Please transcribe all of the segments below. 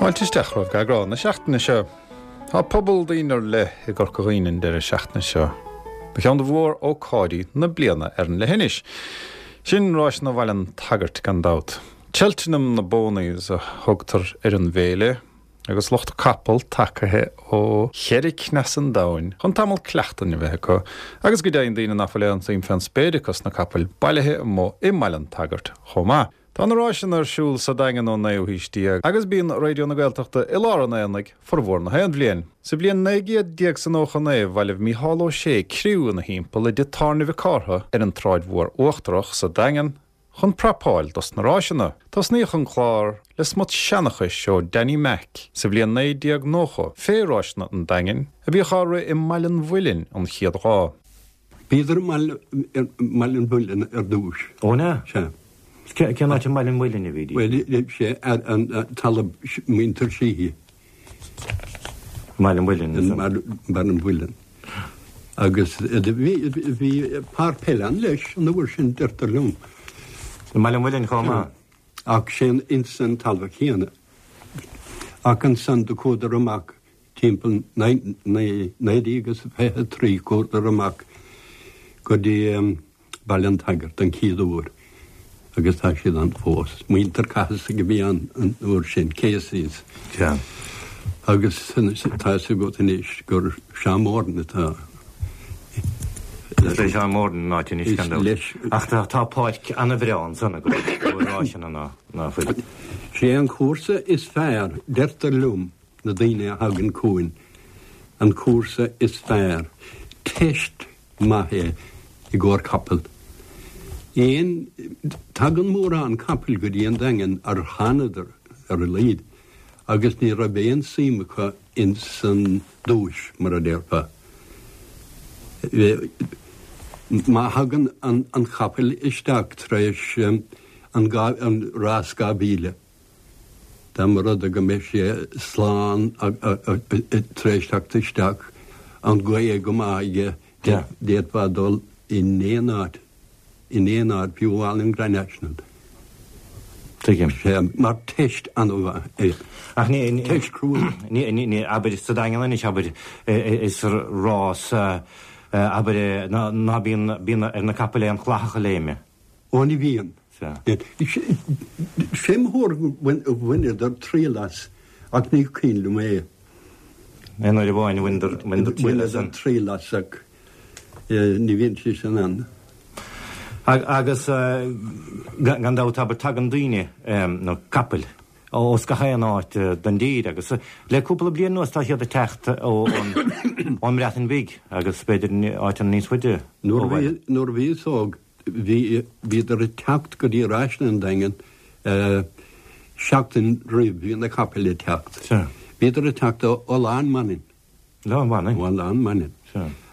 Fáilte isteach romhaibh go eagrán na seachtaine seo. Tá pobal daoine ar leith i gCorca Dhuibhne an deireadh seachtaine seo do cheann de mhór-ócáidí na bliana ar an leithinis. Sin Ráiseanna Bhaile an tSagairt gan dabht. Cheltenham na bPonies a thugtar ar an bhféile agus lucht capall tagaithe ó cheithre cneas an domhain chun tamall cleachtain a bheith acu agus go deimhin daoine nach bhfuil aon tsuim fén spéir acu sna capaill bailithe amuigh i mBaile an tSagairt chomh maith. Tá na ráiseanna ar siúl sa Daingean ón naoú haois déag agus bíonn Raidió na Gaeltachta i lár an aonaigh formhór na haon bhliain. Sa bhliain 1999 bhailigh Mícheál Ó Sé criú ina thimpeall i dtigh tábhairne Mhic Cártha ar an tSráid Mhór Uachtarach sa Daingean chun prapáil dos na ráiseanna. Tosnaíodh an clár le smut seanchais ó Danny Mac sa bhliain 1990 fé ráiseanna an Daingin a bhíodh á rith i mBaile an Mhuilinn an chéad lá. Bhíodar i mBaile an Mhuilinn ar dtúis. Ó an ea? Sea. Cén áit i mBaile an Mhuilinn a bhídís? Bhuel, sé an talamh muintir Sheehy. I mBaile an Mhuilinn. I mBaile an Mhuilinn. Agus bhí páirc peile ann leis an uair sin, deirtear liom. I mBaile an Mhuilinn chomh maith? Ach sé ins an talamh chéanna. Ach ansan do chuadar amach Timpeall 1923 chuadar amach go dtí Baile an tSagairt an chéad uair agus tá siad ann fós. Muintir Cathasaigh a bhí ann an uair sin, Caseys. Agus tá a fhios agat anois gur Seán Moran atá. Is le Seán Moran an áit anois gan dabht. Ach tá páirc an-bhreá ansan i gcomhair ráiseanna ná fuil. Sé an cúrsa is fearr, deirtear liom, na daoine a thagann chugainn, an cúrsa is fearr. Teist maith é i gcomhair capall. Aon, tagann mórán capaill go dtí an Daingean ar thánadar ar a laghad agus ní raibh aon suim acu ins an duais, mar a déarfá. Má thagann an capall isteach tar éis an rás 2000, Dá mba rud é go mbeidh sé slán tar éis teacht isteach, an ghaoth go maith aige, d'fhéadfá dul in aon áit, in aon áit, fiú amháin an Grand National. Tuigim. Sea, mar teist an-mhaith é. Ach ní, Teist chrua. ní, ní, ní, abair sa Daingean anois, abair, is rás, abair, ná bíonn, bíonn ar na capaill aon chlathach a léimeadh. Ó ní bhíonn. Sea. Sé mo thuairim gur bhaineadar triail as, ach ní cuimhin liom é. Aon uair amháin a bhaineadar triail as. Bhaineadar triail as ach ní bhíonn sé sin ann. Agus gan dabht, abair, tagann daoine, nó capaill, ós gach aon áit den dtír agus le cúpla bliain anuas tá siad ag teacht ón mBreatain Bhig agus b'fhéidir áiteanna níos faide ó bhaile. Nuair a bhíos óg bhí, bhíodar ag teacht go dtí Ráiseanna an Daingin seachtain roimh bhí na capaill ag teacht. Bhíodar ag teacht ó Oileán Manainn. Oileán Manainn? Ó Oileán Manainn.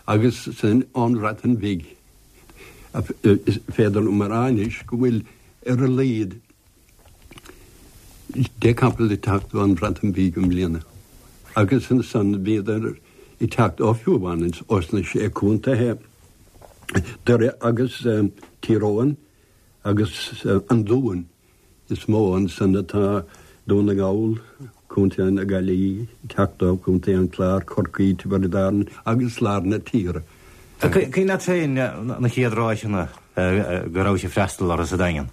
Agus sin ón Bhreatain Bhig. Is féidir liom a rá anois go bhfuil ar a laghad 10 capall ag teacht ón Bhreatain Bhig i mbliana. Agus ansan bhíodar ag teacht ó fiú amháin ós na Sé Contaethe, Doire agus Tír Eoghain agus an Dún is mó ansan atá Dún na nGall, Contae na Gaillimhe, ag teacht ó Chontae an Chláir, Corcaigh, Tiobraid Árann agus lár na tíre. Cuimhin leat féin na chéad ráiseanna go rabhais ag freastal orthu sa Daingean?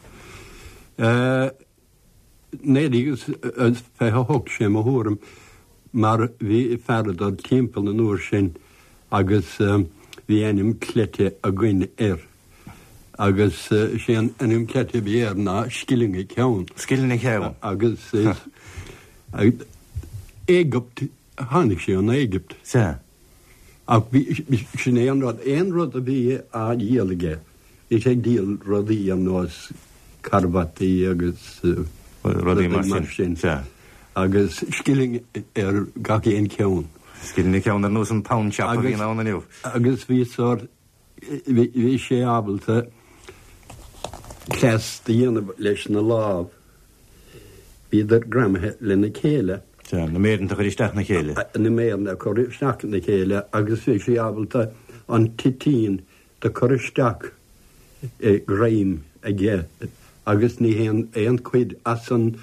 1928, sé mo thuairim, mar bhí fear ag dul timpeall an uair sin agus bhí ainm cleite againn air agus sé an ainm cleite a bhí air ná Scilling a Ceann. Scilling a Ceann. Agus Éigipt, tháinig sé ón Éigipt. Sea. Ach bhí, sin é an rud, aon rud a bhí á dhíol aige, bhí sé ag díol rudaí ar nós carbataí agus rudaí mar sin. Sea. Agus scilling ar gach aon cheann. Scilling an ceann ar nós an pound shop a bhíonn ann inniu. Agus bhí sórt, bhí sé ábalta cleas do dhéanamh leis na lámh. Bhíodar greamaithe lena chéile. Sea, na méireanta a chur isteach ina chéile. Na méireanna a chur isteach ina chéile agus bhí sé ábalta an toitín do chur isteach i greim aige agus ní théann aon chuid as an.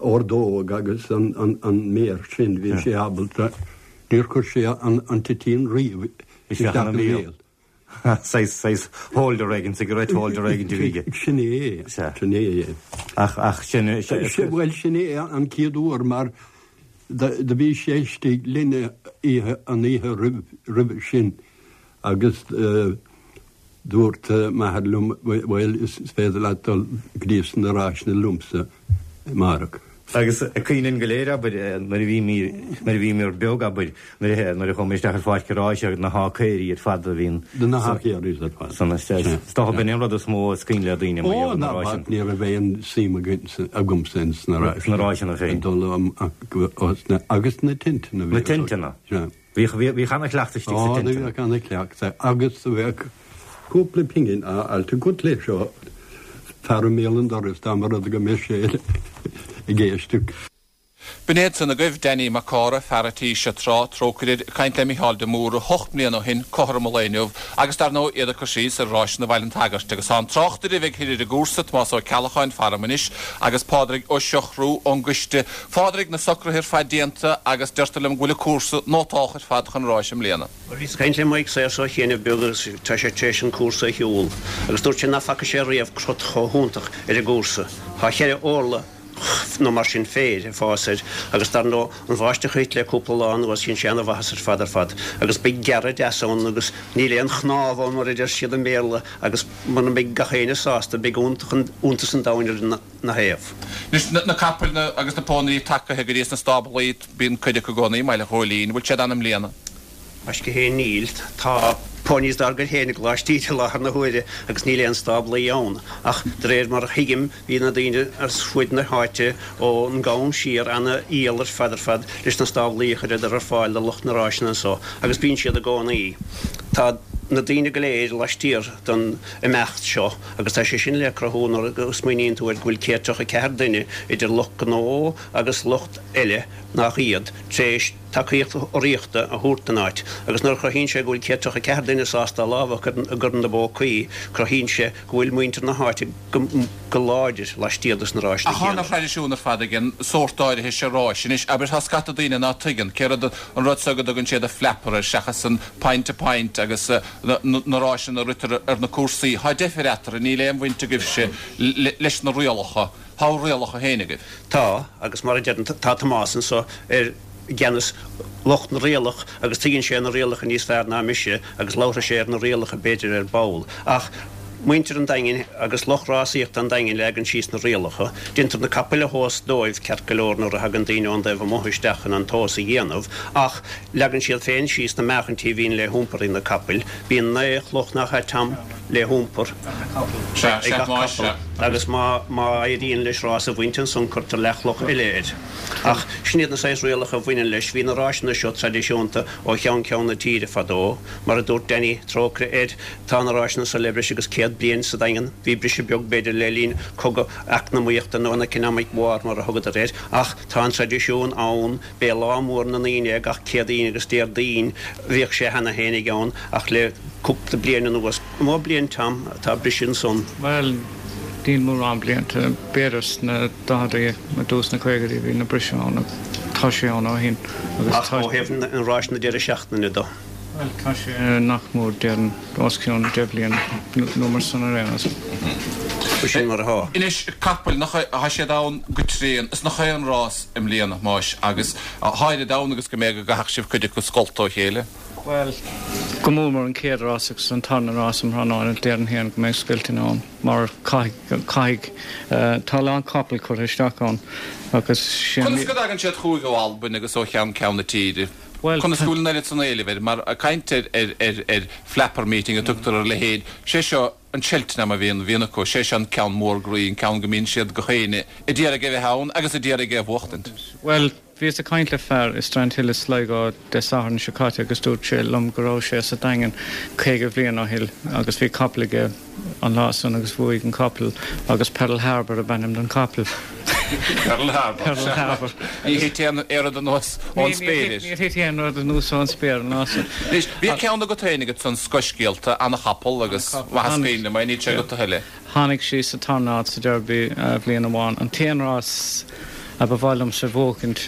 Ordóg agus an méar sin, bhí sé ábalta, níor chuir sé an toitín riamh isteach ina bhéal. Saghas holder éigin, cigarette holder éigin a bhí aige. Sin é, sin é. Ach sin. Bhuel, sin é an chéad uair mar do bhí sé istigh linn oíche, an oíche roimhe sin agus dúirt m'athair liom, bhuel, is féidir leat dul go dtí sna ráiseanna liomsa amárach. Agus cuimhin linn go léir, abair, nuair a bhí, nuair a bhíomar beag, abair, nuair a, nuair a chuaigh muid isteach ar pháirc an ráis agus na hácaeirí ar fad a bhíonn. Na hácaeirí ar fad. San, is dócha b'in an rud is mó is cuimhin le daoine mar gheall ar na ráiseanna. Ó, ná bac, ní raibh aon suim agamsa ins na ráiseanna. Sna ráiseanna féin. Dul amach, agus na tinteanna. Na tinteanna. Sea. Bhíodh ana-chleachtadh istigh sa tinteanna. Ó, bhíodh ana-chleachtadh agus bheadh cúpla pingin á fháilt agat leis ó fear i mbéal an dorais dá mba rud go mbeadh sé ag éisteacht. B'in iad san agaibh, Danny Mac Cárthaigh, fear a' tí seo tráth, trócaire air, ag caint le Mícheál de Mórdha hocht mbliana ó shin, cothrom an lae inniu, agus dar ndóigh iad ag cur síos ar Ráiseanna Bhaile an tSagairt. Agus tá an tráchtaire a bheidh thoir ar an gcúrsa, Tomás Ó Ceallacháin, faram anois, agus Pádraig Ó Siochrú ón gcoiste. Phádraig, na socruithe ar fad déanta agus deirtear liom go bhfuil an cúrsa nótálta ar fad chun ráis i mbliana. Bhuel, bhíos ag caint le Mike Sayers ó chianaibh beag agus tá sé tar éis an cúrsa a shiúl agus dúirt sé ná faca sé riamh crot chomh hiontach ar an gcúrsa. Tá cheithre orlach nó mar sin féir ag fás air agus dar ndóigh an bháisteach a thit le cúpla lá anuas dhein sé ana-mhaitheas ar fad ar fad agus beidh gearradh deas ann agus níl aon chnámh ann mar a deir siad i mBéarla agus muna mbeidh gach éinne sásta beidh iontas an domhain ar na thaobh. Anois, na capaill agus na pónairí tagaithe go dtí sna stáblaí, bíonn cuid acu i gcónaí i mBaile Ghóilín. Bhfuil siad ann i mbliana? Gaisce féin níl. Tá ponies dár gcuid féin i gColáiste Íde i láthair na huaire agus níl aon stáblaí ann. Ach de réir mar a thuigim bhí na daoine as fuaid na háite ón gCam siar ana fhial ar fad ar fad leis na stáblaí a chuireadar ar fáil do lucht na ráiseanna anso agus bíonn siad i gcónaí. Tá na daoine go léir laistiar don imeacht seo agus tá sé sin le cruthú nuair a smaoiníonn tú air go bhfuil 134 duine idir lucht gnó agus lucht eile nach iad tar éis tacaíocht urraíochta a thabhairt don áit agus nuair a chruthaíonn sé go bhfuil 134 duine sásta a lámh a chur ina bpócaí cruthaíonn sé go bhfuil muintir na háite go láidir laistiar dos na ráiseanna Ach tá céanna. ana-thraidisiún ar fad ag an sórt áirithe seo ráis. Anois, abair, tá scata daoine ná tuigeann céard an rud seo go dtugann siad an flapper air seachas an point to point agus na ráiseanna a ritear ar na cúrsaí. Tá deifir eatarthu, níl aon bhaint agaibhse leis na rialacha. Tá bhur rialacha féin agaibh. Tá, agus mar a deirim, tá Tomás anso ar gceannas lucht na rialach agus tuigeann sé na rialacha níos fearr ná mise agus labharfaidh sé ar na rialacha b'fhéidir ar ball. Ach muintir an Daingin agus lucht rásaíochta an Daingin leagann síos na rialacha. Déantar na capaill a thomhas dóibh ceart go leor nuair a thagann daoine ón dtaobh amuigh isteach chun an tomhas a dhéanamh ach leagann siad féin síos na meáchaintí a bhíonn le hiompar ag na capaill. Bíonn 9 chloch nach ea Tom le hiompar ag gach capall agus má éiríonn leis rás a bhaint ansan cuirtear leathchloch eile air. Ach sin iad na saghas rialacha a bhaineann leis. Bhí na ráiseanna seo traidisiúnta ó cheann ceann na tíre fadó. Mar a dúirt Danny, trócaire air, tá na ráiseanna seo le breis agus 100 bliain sa Daingean. Bhí briseadh beag b'fhéidir le linn cogadh eacnamaíochta nó an economic war mar a thugadar air ach tá an traidisiún ann. B'é lá mór na ndaoine é gach Céadaoin agus Déardaoin. Bhíodh sé cheana fhéinig ann ach le cúpla bliain anuas, an mó bliain Tom atá briseadh ansan? Bhuel, níl mórán blianta, b'fhéidir sna daicheadaí nó dtús na caogaidí bhí na briseadh ann agus tá sé ann ó shin agus Ach ó thaobh na ráiseanna deireadh seachtaine de? Bhuel, tá sé nach mór déarfainn os cionn 10 bliain nó mar san ar aon nós. Sin mar atá. Anois, capaill, nach é, tá siad ann go tréan, is nach é an rás i mbliana, a Thomáis, agus tá oiread ann agus go mbeidh go gcaithfeadh sibh cuid acu a scoilteadh ó chéile. Bhuel, go mór mór an chéad rás agus an tarna rás um thráthnóna, déarfainn féin go mbeidh scoilteanna ann mar caithfidh, caithfidh, tá a lán capall curtha isteach ann agus sé an. Conas go dtagann siad chugaibh ó Albain agus ó cheann ceann na tíre? Bhuel, Conas go bhfuil an oiread san éilimh air? Mar caint ar ar flapper meeting a tugtar ar a leithéid, sé seo an Cheltenham a bhíonn bhíonn acu, sé seo an ceann mór groí, an ceann go mbíonn siad gach éinne a d'iarraidh a bheith ann agus a d'iarraidh é a bhuachtaint. Bhuel, bhíos ag caint le fear i Strandhill i Sligo Dé Sathairn seo caite agus dúirt sé liom go raibh sé sa Daingean 50 bhliain ó shin agus bhí capall aige an lá san agus bhuaigh an capall agus Pearl Harbour ab ainm don chapall. Pearl Harbour. Pearl Harbour. Ní thit aon rud anuas ón spéir air. Níor thit aon rud anuas ón spéir an lá san. Anois, bhí ceann agat féin agat san Scothscéalta, ana-chapall agus maith is cuimhin liom é, níl sé agat a thuilleadh. Tháinig sí sa tarna háit sa Derby bhliain amháin. An t-aon rás. A ba mhaith liomsa a bhuachaint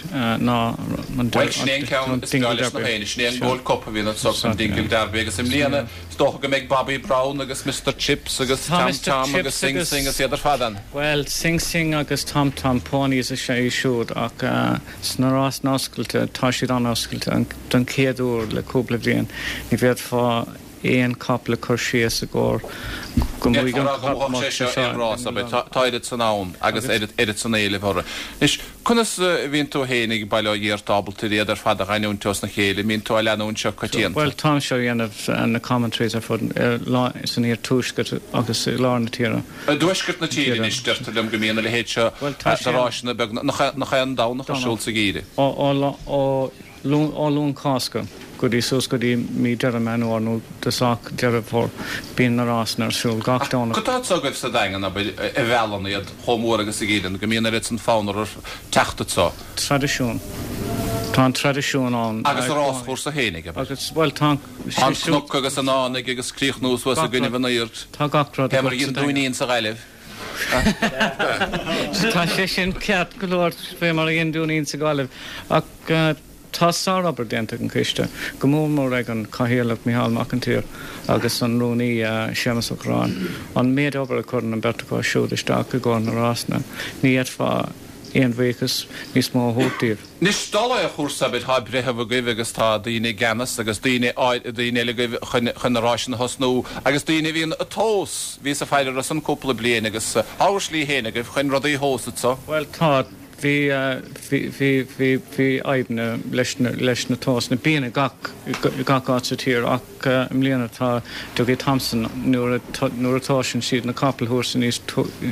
ná an Bhuel, sin é an ceann is breá leis gach éinne, sin é an Gold Cup a bhíonn anso, an Dingle Derby, agus i mbliana is dócha go mbeidh Bobby Brown agus Mister Chips agus Tom Tom agus Sing Sing agus iad ar fad ann. Bhuel, Sing Sing agus Tom Tom, ponies is ea iad siúd ach sna rásanna oscailte, tá siad an-oscailte, don chéad uair le cúpla bliain, ní bhféadfá aon capall a chur síos i gcomhair go mbuafaidh an capall sé seo aon rás, abair. Tá oiread san ann agus oiread san éilimh orthu. Anois, conas a bhíonn tú féin ag Baile Átha Ghiorta ábalta ar iad ar fad a dh'aithniúint osna chéile? An mbíonn tú á leanúint seo coitianta? Bhuel, táimse á dhéanamh na commentaries ar fud san iarthuaisceart agus i lár na tíre. I dtuaisceart na tíre anois, deirtear liom go mbíonn a leithéid seo de ráiseanna beag nach é an Domhnach ar siúl sa gheimhreadh. Ó Ó Luan Cásca go dtí suas go dtí mí Deireadh Meán Fhómhair nó dosach Deireadh Fómhair bíonn na rásanna ar siúl gach Domhnach. Cad tá anso agaibh sa Daingean, abair, a mheallann iad chomh mór agus a dhíolann, go mbíonn oiread san fonn orthu teacht anso? Traidisiún. Tá an traidisiún ann. Agus an ráschúrsa fhéinig, abair. Agus, bhuel, tá an. Tá an cnoc agus an fhánaidh agus críochnú suas i gcoinnibh an aoird. Tá gach rud Fé mar a dhein Dúinín sa Ghaillimh. Tá sé sin ceart go leor, fé mar a dhein Dúinín sa Ghaillimh. Ach tá sárobair déanta ag an choiste, go mór mór ag an Chathaoirleach Micheál Mac an tSaoir agus an Rúnaí Séamus Ó Corráin. An méid obair a chuireann an bheirt acu siúd isteach i gcomhair na rásanna, ní fhéadfá aon bhuíochas níos mó a thabhairt díobh. Anois, dála an chúrsa, abair, tá breitheamh agaibh agus tá daoine i gceannas agus daoine, daoine eile agaibh chun, chun na ráiseanna a thosnú agus daoine a bhíonn ag tomhas, bhíos ag faire orthu san cúpla bliain agus tá bhur slí féin agaibh chun rudaí a thomhas anso. Bhuel, tá, bhí, bhí, bhí, bhí, bhí fadhbanna leis na, leis na tomhasanna. Bíonn i gach, i gach áit sa tír ach i mbliana tá Dougie Thompson, nuair a, nuair a thomhaiseann siad na capaill thuas san,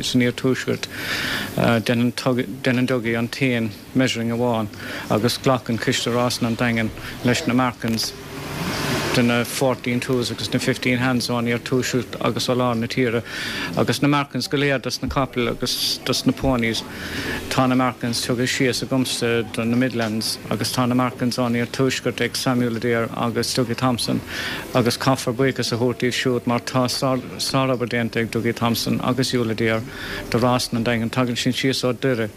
san iarthuaisceart, déanann, déanann Dougie an t-aon, measuring amháin agus glacann Coiste Rásanna an Daingin leis na markings de na fourteen twos agus na fifteen hands ón iarthuaisceart agus ó lár na tíre agus na markings go léir dos na capaill agus dos na ponies. Tá na markings tugtha síos agamsa do na Midlands agus tá na markings ón iarthuaisceart ag Samuel Adair agus Dougie Thompson agus caithfear buíochas a thabhairt díobh siúd mar tá sárobair déanta ag Dougie Thompson agus Yul Adair do Rásanna an Daingin. Tagann siad síos ó Doire.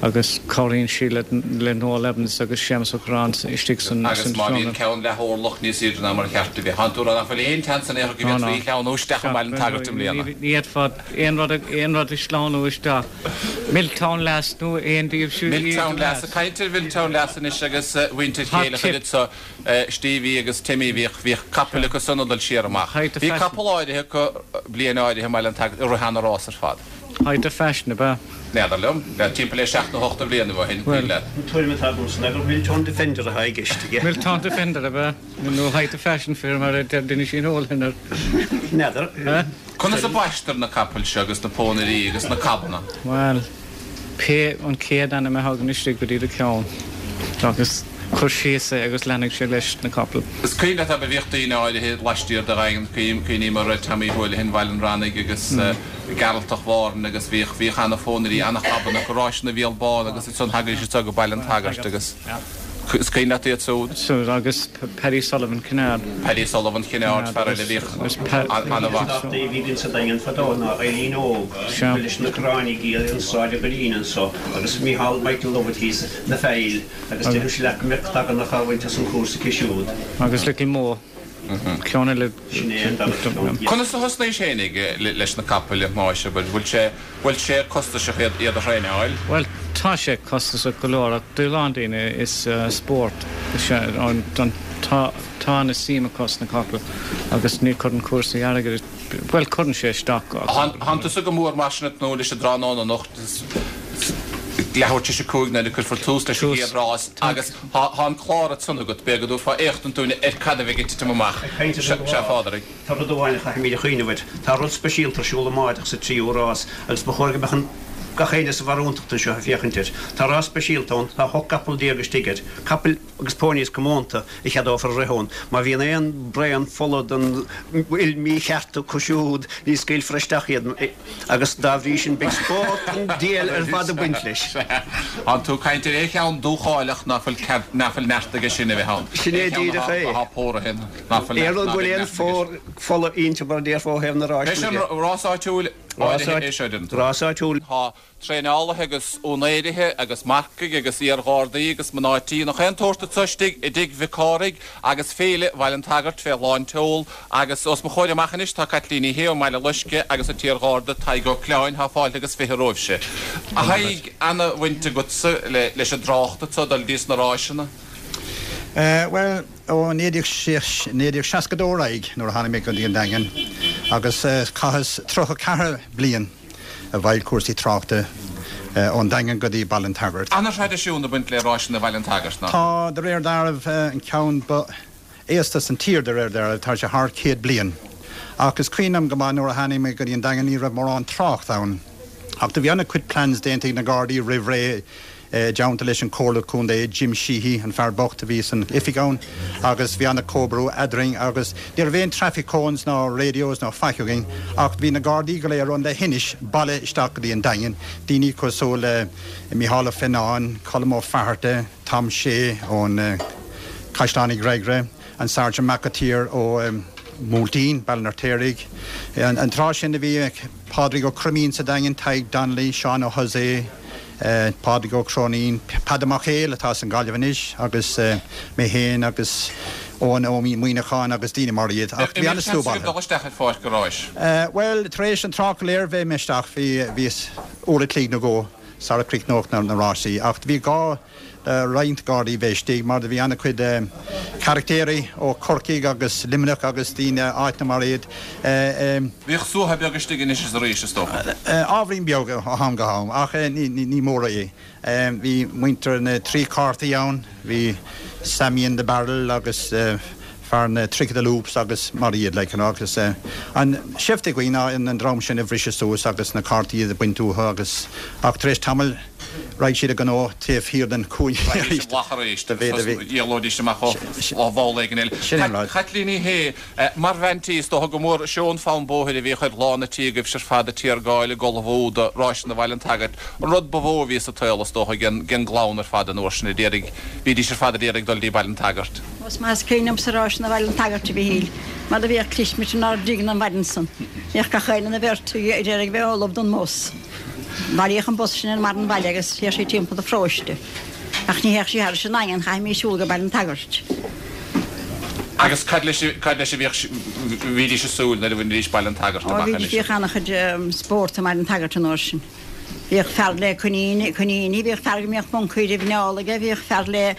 agus cabhraíonn sí le Noel Evans agus Séamus Ó Corráin istigh san Agus má bhíonn ceann leath orlach níos aoirde ná mar a cheart a bheith, tánn tú ag rá nach bhfuil aon tseans in aon chor go bhféadfaí a shleamhnú isteach i mBaile an tSagairt i mbliana. Ní fhéadfá aon rud aon rud a shleamhnú isteach. Milltown Lass nó aon díobh siúd. Milltown Lass, ag caint ar Mhilltown Lass anois agus mhuintir Chéile anso, Stevie agus Timmy, bhíodh bhíodh capaill acu san ag dul siar amach. Bhí capall áirithe acu bliain áirithe i mBaile an tSagairt a rith ana-rás ar fad. Height of Fashion, ab ea? N'fheadar liom. Bheadh timpeall le seacht nó hocht de bhlianaibh ó shin, cuimhin leat. An tuairim atá agamsa ná gur Milltown Defender atá i gceist aige. Milltown Defender, ab ea? Nó Height of Fashion, fé mar a deir Dinisín Holohan air. N'fheadar. Conas a baistear na capaill seo agus na pónairí agus na cabanna? Bhuel, pé an chéad ainm a thagann istigh go dtí do cheann agus cuir síos é agus leanfaidh sé leis na capaill. Is cuimhin leat, abair, bhíodh daoine áirithe laistiar de Dhaingean, cuimhním ar Tommy Houlihan Bhaile an Rannaigh agus Gearaltach Mhárthain agus bhíodh, bhíodh ana-phónairí, ana-chabanna acu, Ráiseanna Mhícheál Bán agus ansan thagaidís anso go Baile an tSagairt agus is cuimhin leat iad siúd? Siúd agus Paddy Sullivan Kinnaird. Paddy Sullivan Kinnaird, fear eile a bhíodh an-mhaith. Bhí againn sa Daingean fadó ná Eileen Óg, ba leis na Corránaigh í ar an Sráid an Ghoirín anso agus Micheál Michael Lovett thíos na Faill agus deirimse leat go mbeadh tagann á bhaint as an chúrsa aici siúd. Agus Little Mo. Ceann eile. Sin é an dara ceann. Conas a thosnaís fhéinig leis na capaill a Thomáis, abair? Bhfuil sé, bhfuil sé costasach iad, iad a thraenáil? Bhuel, tá sé costasach go leor ach do a lán daoine is spórt is ea an, don, tá, tá ana suim acu sna capaill agus ní chuireann cúrsaí airgid, bhuel cuireann sé isteach ach. Tánn tusa go mór mar sin ag tnúth leis an dtráthnóna anocht, leathuair tar éis a 5 nuair a cuirfear tús leis an gcéad rás agus Tá an clár ansan agat, b'fhéidir go dtabharfá éachtaint dúinn ar cad a bheidh ag titim amach. Ag caint ar an Sea, a Phádraig. Tá rud amháin a chaithfimid a chuimhneamh air. Tá rud speisialta ar siúl amáireach sa tríú rás agus ba chóir go mbeadh an gach éinne sa bharúntacht anseo ag féachaint air. Tá rás speisialta ann, tá 18 gcapall istigh air. Capaill agus ponies comónta a cheadófar a rith ann. Má bhíonn aon braon fola den fhuil mícheart acu siúd ní scaoilfear isteach iad. Agus dá bhrí sin beidh spórt an diabhail ar fad ag baint leis. Tánn tú ag caint ar aon cheann dúcháileach ná fuil cead, ná fuil neart aige sin a bheith ann. Sin é díreach é. Atá póraithe, ná fuil neart, ná beidh neart aige. Aon rud go bhfuil aon phór fola inti mar a déarfá ó thaobh na ráis de. Beidh sé an rás áitiúil. Áirithe é seo, deireann tú. Rás áitiúil. Tá traenálaithe agus úinéirithe agus marcaigh agus iar-ghardaí agus mná tí nach aon tsórt anso istigh i dTigh Mhic Cárthaigh agus Féile Bhaile an tSagairt fé lán tseol agus os mo chomhair amach anois tá Caitlín Ní Shé ón mBaile Loiscthe agus an t-iar-gharda Tadhg Ó Cleáin. Tá fáilte agus 20 romhaibhse. A Thaidhg, ana-bhaint agatsa leis an dtrácht anso dul dtí sna ráiseanna. Bhuel, ó 1962 ar aghaidh nuair a tháinig mé go dtí an Daingean agus chaitheas 34 bliain i bhfeighil cúrsaí tráchta ón Daingean go dtí Baile an tSagairt. Ana-thraidisiún ag baint le ráiseanna Bhaile an tSagairt, nach ea? Tá, de réir dealraimh, an ceann ba aosta san tír, de réir dealraimh, tá sé thar 100 bliain. Ach is cuimhin liom go maith nuair a tháinig mé go dtí an Daingean ní raibh mórán trácht ann. Ach do bhí ana-chuid plans déanta ag na Gardaí roimh ré i dteannta leis an Comhairle Contae, Jim Sheehy, an fear bocht a bhí san oifig ann agus bhí ana-chomhoibriú eadrainn agus ní raibh aon traffic cones ná radios ná faic againn ach bhí na Gardaí go léir ón leithinis bailithe isteach go dtí an Daingean, daoine cosúil le Micheál Ó Fionnáin, Colm Ó Fatharta, Tom Shea ón Caisleán Uí Ghréagaire, an Sergeant McAteer ó Mhúiltín, Baile an Fheirtéaraigh. An tráth sin a bhí Pádraig Ó Croimín sa Daingean, Tadhg Donnelly, Seán Ó hOsae, Pádraig Ó Cróinín, Peadar Mac Héil atá as an Ghaillimh anois agus mé féin agus Eoin Ó Muíneacháin agus daoine mar iad. Ach bhí an-slua bailithe. dul isteach ar pháirc an ráis? Bhuel, tar éis an trácht go léir bheith mé isteach, bhí, bhíos uair a chloig nó dhó sara críochnódh na rásaí ach bhí gá le roinnt Gardaí bheith istigh mar do bhí an-chuid carachtéirí ó Chorcaigh agus Luimneach agus daoine áiteanna mar iad. Bhíodh suaitheadh beag istigh anois is arís, is dócha. Ábhairín beag ó am go ham, ach ní mór é. Bhí muintir na dtrí cártaí ann, bhí Sammy in the Barrel agus fear na Trick of the Loops agus mar iad, like, you know, agus an seift a bhí againn ná an dream sin a bhriseadh suas agus na cártaí a bhaint uathu agus ach tar éis tamaill Raghaidh siad a ngnó taobh thiar den chúinne arís. Raghaidís amach arís agus éalóidís amach ó bhall éigin eile. Sin an rud. Caitlín Ní Shé, mar bhean tí, is dócha gur mór is ea an fonn bóthair a bhíodh ar lán an tí agaibhse ar fad ag tiargáil ag ullmhú do Ráiseanna Bhaile an tSagairt. An rud ba mhó a bhí sa tsaol, is dócha, ag an gclann ar fad an uair sin a d'iarraidh, bhídís ar fad ag iarraidh dul dtí Baile an tSagairt. Is maith is cuimhin liomsa Ráiseanna Bhaile an tSagairt a Mhíchíl, mar do bhíodh clismit inár dtigh an mhaidin san. Bhíodh gach éinne ina bheirt ag iarraidh bheith ullamh don mbus. Bhailíodh an bus sin ar mbarr an bhaile agus théadh sí timpeall an pharóiste. Ach ní théadh sí thairis an nDaingean, chaithfimís siúl go Baile an tSagairt. Agus cad leis, cad leis a bhíodh, bhídís ag súil nuair a bhainidís Baile an tSagairt amach anois? Ó, bhíodh an-chuid spórt i mBaile an tSagairt an uair sin. Bhíodh fear le coiníní, coiníní, bhíodh fear go mbíodh moncaí roimh neál aige, bhíodh fear le,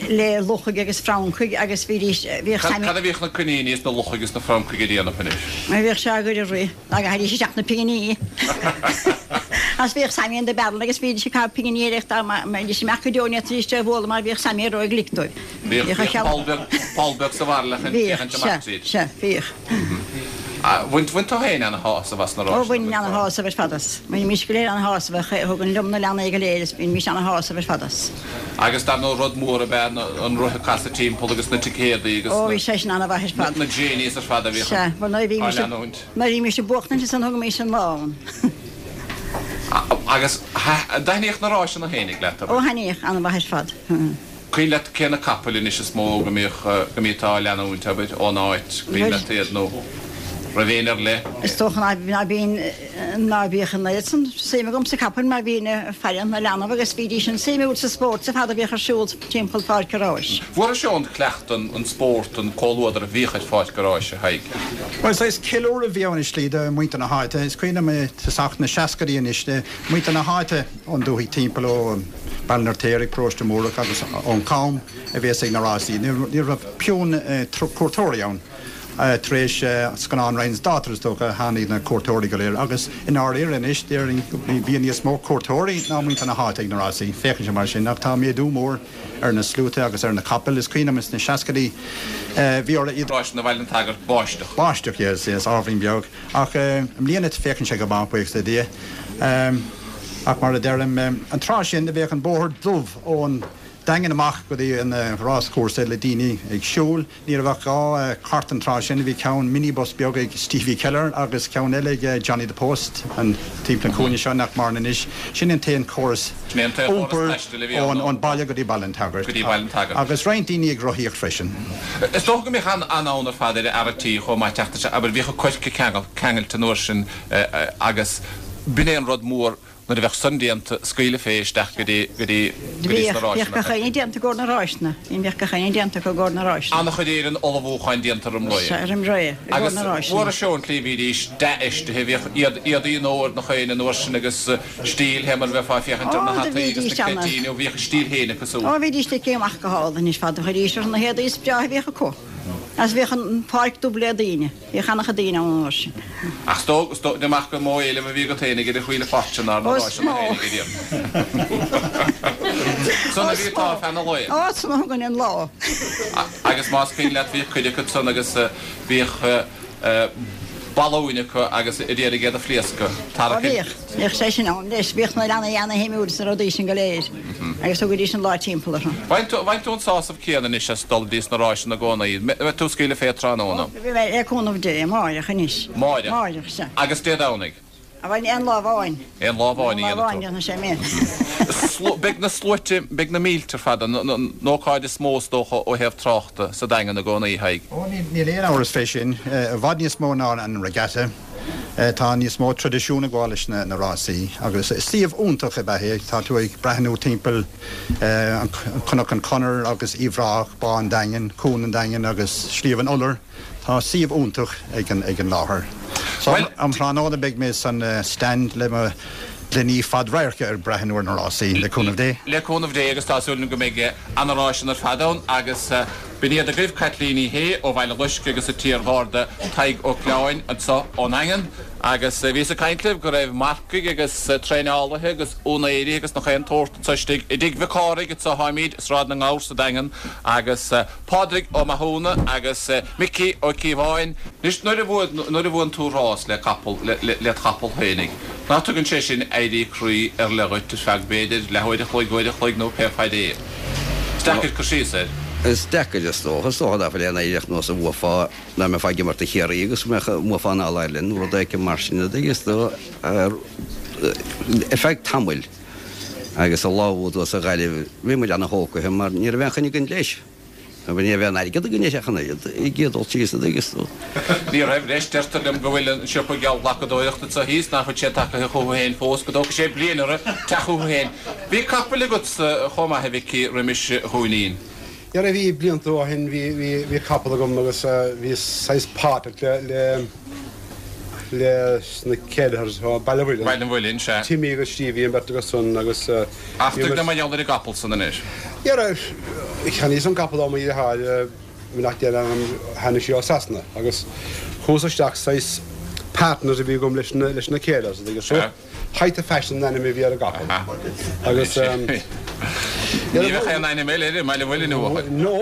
le luchaigh agus francaigh agus bhídís, bhíodh Cad, cad a bhíodh na coiníní is na luchaigh is na francaigh a dhéanamh anois? Bhíodh sé á gcur ag rith. Dá gcaithfidís isteach na pinginí. Agus bhíodh Sammy in the barrel agus bhídís ag caitheamh pinginí air ach dá mbeidís amach go deo ní fhéadfaidís é a bhualadh mar bhíodh Sammy ró-ghlic dóibh. Bhíodh poll beag, poll beag sa bhairille chun féachaint amach tríd. Bhíodh, sea, bhíodh. Bhain, bhain tú féin ana-shásamh as na ráiseanna? Ó, bhaininn ana-shásamh ar fad as. Bhainimís go léir ana-shásamh as. Thugainn liom na leanaí go léir is bhímís ana-shásamh ar fad as. Agus dar ndóigh rud mór ab ea an roth ag casadh timpeall agus na ticéadaí agus Ó, bhí sé sin ana-mhaith ar fad. na jennies ar fad a bhíodh Sea, bhuel nuair a á bhímís, leanúint. nuair a bhímís ag buachtaint ansan thugaimis an lá ann. Agus an dtaitníodh na ráiseanna fhéinig leat, abair? Ó, thaitníodh, ana-mhaith ar fad. Cuimhin leat cé na capaill anois is mó go mbíodh, go mbíteá á leanúint, abair, ón áit, cuimhin leat iad nó raibh éinne ar leith? Is dócha ná, ná bíonn, ná bíodh an oiread san suim agam sa capaill mar bhínn ag faire na leanbh agus bhídís an-suimiúil sa spórt ar fad a bhíodh ar siúl timpeall Pháirc an Ráis. Bhfuarais ón cleachtadh an, an spórt, an comhluadar a bhíodh ar Pháirc an Ráis, a Thaidhg? Bhuel, saghas ceiliúradh a bhí ann i slí do mhuintir na háite. Is cuimhin liom i tosach na seascaidí anois, muintir na háite ón dúthaigh timpeall ó, Baile an Fheirtéaraigh, Paróiste Múrach agus ón Cham a bhíos ag na rásaí. Ní raibh piúnn cuairteoirí ann. Tar éis scannán Ryan's Daughter is dócha a tháinig na cuairteoirí go léir agus i ndáiríre anois déarfainn go mbíonn níos mó cuairteoirí ná muintir na háite ag na rásaí. Féachann sé mar sin ach tá méadú mór ar na sluaite agus ar na capaill. Is cuimhin liom sna seascaidí bhí orthu iad. Ráiseanna Bhaile an tSagairt, báisteach. Báisteach, yes, yes, ábhairín beag. Ach i mbliana féachann sé go maith, buíochas le Dia. Ach mar a deirim, an tráth sin do bheadh an bóthar dubh ón. Daingean amach go dtí an ráschúrsa le daoine ag siúl. Ní raibh ach 2 chairt an tráth sin, bhí ceann minibus beag ag Stevie Keller agus ceann eile ag Johnny the Post, an timpeall an chúinne seo nach maireann anois. Sin an t-aon chóras iompair ón baile go dtí Baile an tSagairt. Agus roinnt daoine ag rothaíocht freisin. Is dócha go mbeadh an-fhonn ar fad ar fhear a' tí chomh maith teacht isteach, abair, bhíodh an coirce ceangailte an uair sin agus b'in é an rud mór Nuair a bheadh san déanta, scaoileadh fé isteach go dtí, go dtí, go dtí sna Bhíodh, bhíodh ráiseanna. gach éinne déanta i gcomhair na ráiseanna. Bhíodh gach éinne déanta acu i gcomhair na ráiseanna. An-chuid Éireann ullmhúcháin déanta roim ré. Sea, roim ré, i gcomhair Agus na ráiseanna. mhór seó an tslí bhídís dea-fheistithe, bhíodh iad, éadaí an fhómhair nach éinne an uair sin agus stíl, fé mar a bheifeá ag féachaint ar Ó, na do hataí agus bhídís na ana. cleití, nó bhíodh a stíl féin acu súd. Ó, bhídís ligthe amach go hálainn anois fad, chuiridís orthu na héadaí is breátha a bhíodh acu. Agus bhíodh an pháirc dubh le daoine. Bhíodh an-chuid daoine ann an uair sin. Ach is dóigh, is dóigh amach gur mó éileamh a bhí agat fhéinig ar an chuile pháirt sin ná na Ó, is ráiseanna mó. fhéinig a rian. San a bhí tá feadh na lae. Ó, san a thugainn an lá. Agus más cuimhin leat bhíodh cuid acu san agus bhíodh balúin acu agus a d'iarraidh iad a phléascadh. Ó Tarrac an. bhíodh. Bhíodh sé sin ann leis. Bhíodh na leanaí ana-shuimiúil sna rudaí sin go léir agus thugaidís an lá timpeall orthu. Bhain tú an sásamh céanna anois as dul dtí sna ráiseanna i gcónaí. Mbeidh tú ag scaoileadh fé tráthnóna? Bhí mé, le cúnamh Dé, amáireach anois. Máireach? Máireach, sea. Agus Dé Domhnaigh? Bhuel, aon lá amháin. Aon lá amháin a Aon lá amháin, dhéanfaidh déanfaidh sé mé. tú. Beidh na sluaite, beidh na mílte ar fad, an ócáid is mó is dócha ó thaobh tráchta sa Daingean i gcónaí, a Thaidhg. Ó, níl aon amhras fé sin. I bhfad níos mó ná an regatta. Tá níos mó traidisiún ag gabháil leis na rásaí agus suíomh iontach ab ea é. Tá tú ag breathnú timpeall an Cnoc an Chonair agus Uíbh Ráthach, Bá an Daingin, Cuan an Daingin agus Sliabh an Iolair. Tá suíomh iontach ag an láthair. So um thráthnóna beidh mé san stand le mo ghloiní fad-radhairce ag breathnú ar na rásaí, le cúnamh Dé. Le cúnamh Dé agus tá súil agam go mbeidh ana-ráiseanna ar fad ann agus B'in iad agaibh Caitlín Uí Shé ó Bhaile Loiscthe agus an t-iar-gharda Tadhg Ó Coileáin anseo ón nDaingean. Agus bhíos ag caint libh go raibh marcaigh agus traenálaithe agus úinéirí agus nach aon tsórt anseo istigh i dTigh Mhic Cárthaigh anseo táimid i Sráid na nGabhar sa Daingean agus Pádraig Ó Mathúna agus Micí Ó Cíobháin. Anois nuair a nuair a bhuann tú rás le capall led chapall féinig, ná tugann sé sin éirí croí ar leith dhuit ar feadh b'fhéidir leathuair a chloig, uair a chloig nó pé faid é. Is deacair cur síos air. Is deacair, is dócha. Is dócha nach bhfuil aon éireach nós a bhuafá, dá mbeifeá ag imirt do Chiarraí agus go mbeadh, mbuafá an All-Ireland nó rud éicint mar sin, an dtuigeann tú, ar feadh tamaill. Agus an lá a bhuaigh tú sa Ghaillimh, bhí muid ana-thógtha mar ní raibh aon choinne againn leis. Ní raibh aon airgead againn leis ach an oiread ag iarraidh dul síos, an dtuigeann tú. Ní raibh, leis. Deirtear liom go bhfuil an siopa geallghlacadóireachta anseo thíos, nach bhfuil sé tagtha chucu féin fós, go dtógfaidh sé bliain orthu teacht chucu féin. Bhí capaill agatsa chomh maith, a Mhicí, roimis Dhúinín. Dhera, bhí, blianta ó shin, bhí, bhí, bhí capall agam agus bhí saghas páirteach le, le, leis na Kelleher's ó Baile an Mhuilinn. Baile an Mhuilinn, sea. Timmy agus Stevie an bheirt acu san agus Ach tuig dom mar gheall ar an gcapall san anois. Dhera, cheannaíos an capall ó mo dheartháir nach deir ann tháinig sí ó Sasana agus chuas isteach saghas partners a bhí agam leis na leis na Kelleher's an dtuigeann tú. Height of Fashion an ainm a bhí ar an gcapall. Agus Ní bheadh aon ainm eile air i mBaile an Mhuilinn uathu. No,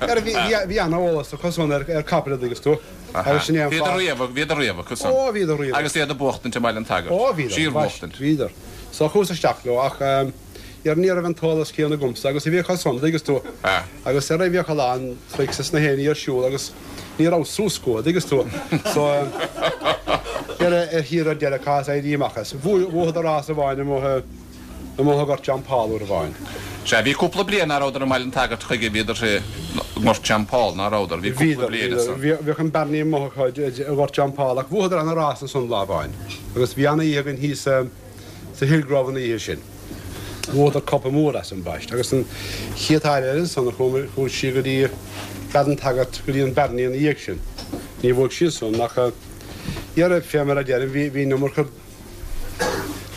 dhera bhí bhí ana-eolas acu san ar ar capaill an dtuigeann tú. Agus sin é an Bhíodar fáth. riamh, bhíodar riamh acu san. Ó, bhíodar riamh. Agus iad ag buachtaint i mBaile an tSagairt. Ó, bhíodar. Síor-bhuachtaint. Bhíodar. So chuas isteach leo ach dhera ní raibh an t-eolas céanna agamsa agus a bhí acu san, an dtuigeann tú. Agus dhera bhíodh a lán tricks is na héinní ar siúl agus ní raibh suas acu, an dtuigeann tú. So dhera ar thiar ar deireadh chaitheas éirí amach as. Bhuadar rás amháin amuigh i. Amuigh i nGort John Paul uair amháin. Sea, bhí cúpla bliain ná rabhadar i mBaile an tSagairt chuige, bhíodar i nGort John Paul, ná rabhadar? Bhí cúpla Bhíodar, bliain bhíodar. ansan. Bhíodh an Barney amuigh acu i nGort John Paul ach bhuadar ana rás ansan lá amháin agus bhí ana oíche againn thíos sa Hillgrove an oíche sin. Bhuadar cupa mór as ambaist agus an chéad uair eile ansan a chuaigh sí go dtí Béal an tSagairt go dtí an Barney ina dhiaidh sin. Ní bhuaigh sí ansan ach dhera fé mar a deirim bhí an iomarca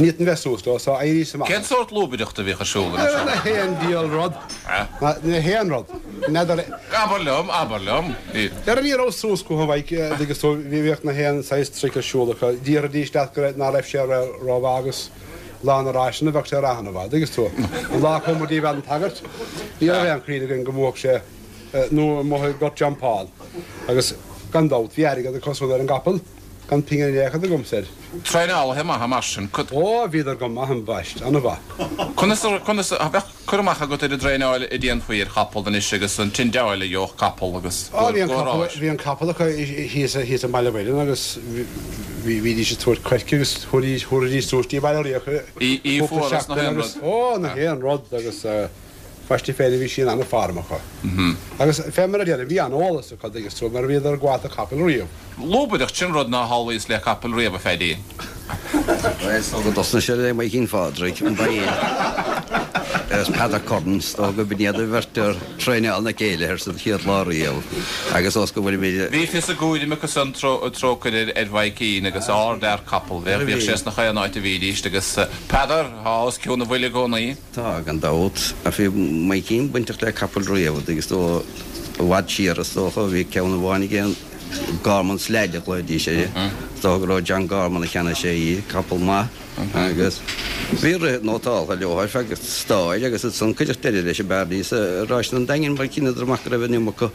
Ní fhéadfainn bheith suas leo, so éiríos amach. Cén sórt lúbaireachta a bhíodh ar siúl anois? Na haon diabhal rud. Na haon rud. N'fheadar. Abair liom, abair liom. Dhera ní raibh suas acu a Mhaidhc, dtuigeann tú, bhíodh na haon saghas trick ar siúl acu. Déarfaidís leat go raibh, ná raibh sé rómhaith agus lá na ráiseanna bheadh sé ana-mhaith, dtuigeann tú. An lá a chuaigh muid dtí Béal an tSagairt, ní raibh aon chuimhne againn go mbuafadh sé nó amuigh i nGort John Paul. Agus gan dabht, bhí airgead acu san ar an gcapall. Gan pingin in aon chor agamsa air. Traenálaithe maithe mar sin. Ó, bhíodar go maith ambaist, an-mhaith. Conas a, conas a, bheadh cur amach agat ar an dtraenáil a déanfaí ar chapall anois agus an tindeáil a gheobhadh capall agus Ó, bhí an capall, bhí an capall acu thíos, thíos i mBaile Mhuirinn agus bhí, bhídís ag tabhairt coirce agus thabharfaidís, thabharfaidís suas dtí Baile Riach Í cúpla fuar is nach seachtain aon agus, rud. ó, nach aon rud agus ambaist féin bhí sí in an-form acu. Agus fé mar a déarfainn, bhí an-eolas acu, dtuigeann tú, mar bhíodar ag gabháil do chapaill riamh. Lúbaireacht, sin rud nár shamhlaíos le capall riamh, a Pheaidí. Bhuel, is dócha go dtosnaigh sé le Maidhcín Phádraig, an ba é? Agus Peadar Curran, is dócha go b'in iad an bheirt a thraenáil na céilithe sa chéad lá riamh agus ós go bhfuilimid. Bhí fios a gcúraim acu san, trócaire ar Mhaidhcín agus ardfhear capall, bheadh, bhíodh sé sna chaon áit a bhídíst agus Peadar, thá os cionn a bhuille i gcónaí. Tá, gan dabht. Ach bhí Maidhcín bainteach le capaill riamh agus dó i bhfad siar is dócha. Bhí ceann amháin aige, Gorman's Lad a ghlaoidís air. Is dócha go raibh John Gorman a cheannaigh sé í, capall maith. Agus bhí rith nótáltha leo ar feadh stair agus ansan cuireadh deireadh leis an bhearnaí sa Ráiseanna an Daingin mar chinneadar amach go raibh an iomarca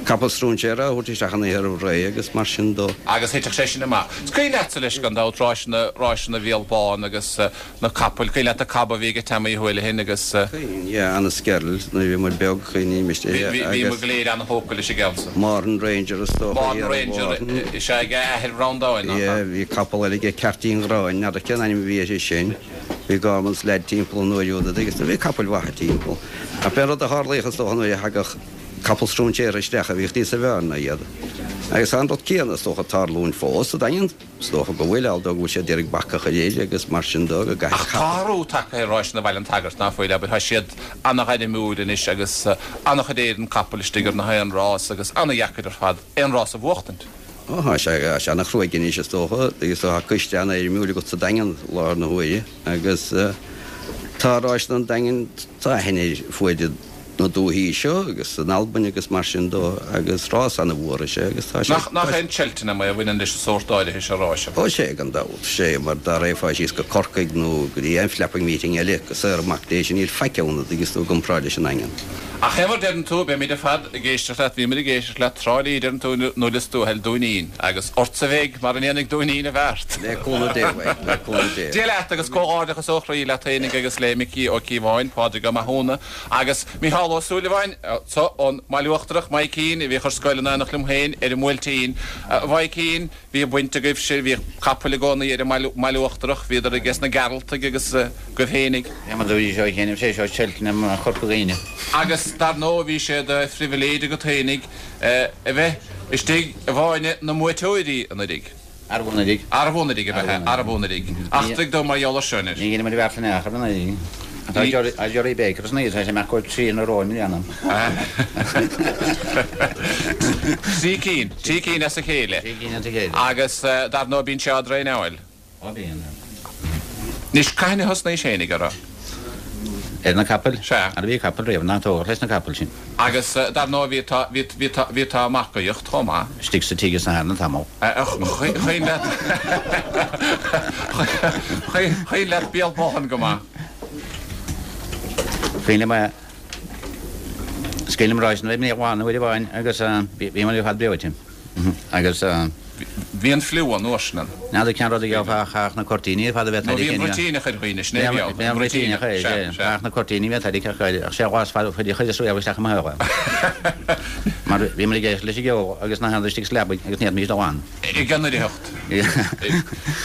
capall stróinséara á thabhairt isteach an oíche roimh ré agus mar sin dó. Agus thitfeadh sé sin amach. Is cuimhin leatsa leis gan dabht ráiseanna, ráiseanna Bhéal Bán agus na capaill, cuimhin leat an cab a bhí ag Tommy Houlihan agus. Cuimhin, yeah, Anaskerl, nuair a bhí muid beag, cuimhním Bhí, bhí muid go léir ana-thógtha leis an gceann san. Mourne Ranger is dócha, Mourne Ranger, is ea, ag a athair Bhreandáin, nach ea? Yeah, bhí capall eile aige, Ceairtín Ghráin, n'fheadar cén ainm a bhí air sin. Bhí Gorman's Lad timpeall an uair úd agus bhí capaill mhaithe timpeall. Ach b'é an rud a tharlaíodh is dócha nuair a thagadh capall stróinséartha isteach a bhíodh níos fearr ná iad. Agus tá an rud céanna is dócha ag tarlúint fós sa Daingean. Is dócha go bhfuil, although go bhfuil siad d'iarraidh bac a chur air agus mar sin dó go gcaithfidh Ach tá athrú tagtha ar Ráiseanna Bhaile an tSagairt, ná fuil, abair, tá siad ana-ghairmiúil anois agus ana-chuid éireann capall istigh ar na haon rás agus ana-dheacair ar fad aon rás a bhuachtaint. Ó, tá sé, tá sé ana-chruaidh anois is dócha, agus tá coiste ana-fhoirmiúil agat sa Daingean i láthair na huaire agus tá Ráiseanna an Daingin, tá aithne air fuaid na dúthaí seo agus in Albain agus mar sin dó agus rás ana-mhór is ea agus tá sé. Nach, nach é an Cheltenham é a bhaineann leis an sórt áirithe seo ráis? Ó sé gan dabht, sé mar dá raghfá síos go Corcaigh nó go dtí aon flapping meeting eile go saor amach dé sin níl faic ann a dtuigeas tú i gcomparáid leis an nDaingean. Ach fé mar deireann tú, beimid ar fad ag éisteacht leat, bhíomar ag éisteacht leat Trá Lí deireann tú nuair is tú a thoil Dúinín agus ortsa a bheidh mar a ndéanfaidh Dúinín a bheart. Le cúnamh Dé beidh, le cúnamh Dé. Dia leat agus comhghairdeachas ó chroí leat fhéinig agus le Micí Ó Cíobháin, Pádraig Ó Mathúna, Agus Mícheál Ó Súilleabháin, so, ón mBaile Uachtarach, Maidhcín, a bhíodh ar scoil in éineacht liom féin ar an mBuailtín. A Mhaidhcín, bhíodh baint agaibhse, bhíodh capaill i gcónaí ar an mBaile Uachtarach, bhíodar aige sna Gearaltaigh agus agaibh fhéinig. Bhí muid bhí seo chéanna, sé seo Cheltenham Chorca Dhuibhne. Agus dar ndóigh bhí sé de phribhléid agat fhéinig a bheith istigh i bhfáinne na mbuaiteoirí anuiridh. Arbh anuraidh? Arbh anuraidh ab ea? Arbh anuraidh? Eachtraigh dom mar gheall air seo anois. Ní dhéanaimid beart in aon chor anuraidh. Tá Jerry Baker san oíche, tá sé amach go 3 in a row i mbliana. 3 cinn, 3 cinn as a chéile. 3 cinn as a chéile. Agus dar ndóigh bíonn sé á dtraenáil. Ó bíonn. Anois, cathain a thosnaís fhéinig orthu? Ar na capaill? Sea. Ara bhí capall riamh, ná tógadh leis na capaill sin. Agus dar ndóigh bhí tá, bhí, bhí tá, bhí tá marcaíocht chomh maith. Istigh sa tigh is na hArna tamall. Cuimhin leat, cuimhin leat Béal Bán go maith. Cuimhin liom, is cuimhin liom ráiseanna i mBéal Bán uair amháin agus bhí muid ar fad breoite. Agus. Bhí an fliú an uair sin ann. N'fheadar cén rud a gheofá ach chaithfeadh na cuirtíní ar fad a bheith Nó bhí an bruitíneach ar dhaoine, sin é a bhí ann. Bhí an bruitíneach air, sea. Chaithfeadh na cuirtíní a bheith tarraingthe ach ach sé ghlas fada chuid chuid is riamh isteach i mo shaol é. Mar bhí muid ag éisteacht leis an gceol agus na handair istigh sa leabaidh agus ní fhéadfaimis dul ann. Ag an oidhreacht.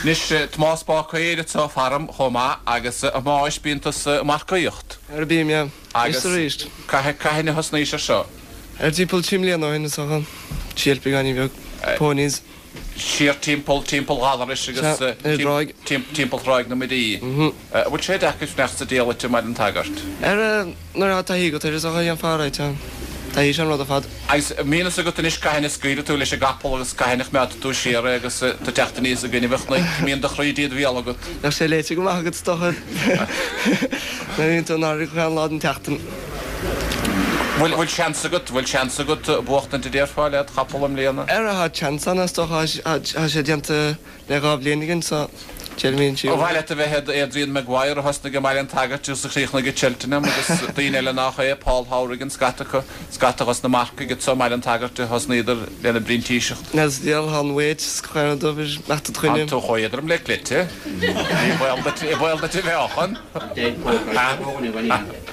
Anois, Tomás Bácaer atá faram chomh maith agus a Thomáis bíonn tusa ag marcaíocht. Ara bím, yeah. Agus cathain a thosnaís ar seo? Ar timpeall 3 mbliana ó shin is dócha. Síol beagáinín beag. Ponies. Siar timpeall, timpeall Ghallarais agus Sea, ar an dtráigh. timpeall Thráigh na Muirí. An bhfuil sé deacair fanacht sa diallait i mBaile an tSagairt? Ar, nuair atá taithí agat air is dócha, dhéanfá alright é. Taithí is ea an rud ar fad. Agus an mbíonn fhios agat anois cathain a scaoilfidh tú leis an gcapall agus cathain a choimeádfaidh tú siar é agus tú ag teacht aníos i gcoinnibh an chnoic, mbíonn do chroí ded bhéal agat? Bheadh sé léite go maith agat is dócha. Nuair a bhíonn tú in airde gach aon lá den tseachtain. Bhfuil, bhfuil seans agat, bhfuil seans agat buachtaint a déarfá led chapall i mbliana? Ara, tá seans ann is dócha, tá sé déanta le 2 bhliain again so. Déarfainn Ba mhaith leat a bheith Adrian Maguire a thosnaigh i mBaile an tSagairt agus a chríochnaigh i Cheltenham agus daoine eile nach é, Paul Howrigan, scata acu, scata dos na marcaigh anso i mBaile an tSagairt a thosnaíodar lena bprintíseacht. N'fheadar sa diabhal thá an mhéid is claonadh dóibh ar mbeadh do dhuine. Tánn tú chomh éadrom le cleite. Ní baol duit, ní baol duit a mheáchan.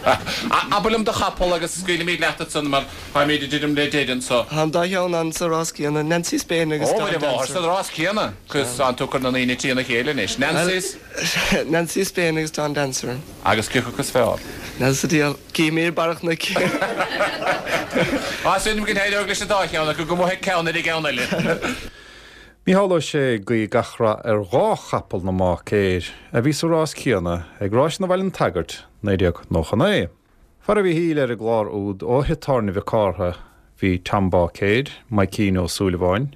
Abair liom do chapall agus scaoilfimid leat ansan mar táimid ag druidim le deireadh anso. Tá an dá cheann ann sa rás céanna, Nancy Spain agus Ó, Dawn Dancer. Ó, sa rás céanna. Cos tánn tú ag cur na ndaoine trína chéile anois. Nancy's? Nancy Spain agus Dawn Dancer. Agus cé acu is fearr? N'fheadar sa diabhal. Cífimid ar barr an chnoic. Tá súil agam go n-éireoidh leis an dá cheann acu, go mbuafaidh ceann ar an gceann eile. Mícheál Ó Sé ag guí gach rath ar dhá chapall na mBáicéir a bhí sa rás céanna ag Ráiseanna Bhaile an tSagairt 1999. Fara Mhichíl ar an gclár úd ó thigh tábhairne Mhic Cártha bhí Tom Báicéir, Maidhcín Ó Súilleabháin,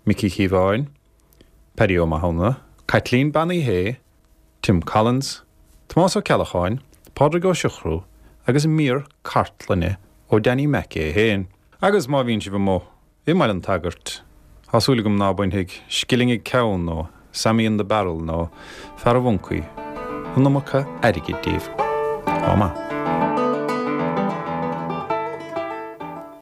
Micí Chíobháin, Paddy Ó Mathúna, Caitlín Bean Uí Shé, Tim Collins, Tomás Ó Ceallacháin, Pádraig Ó Siochrú agus mír cartlainne ó Danny Mac é féin. Agus má bhíonn sibh amuigh i mBaile an tSagairt, tá súil agam ná bainfidh Scilling ag Ceann nó Sammy in the Barrel nó Fear an Mhoncaí an iomarca airgid díbh. Ádh maith.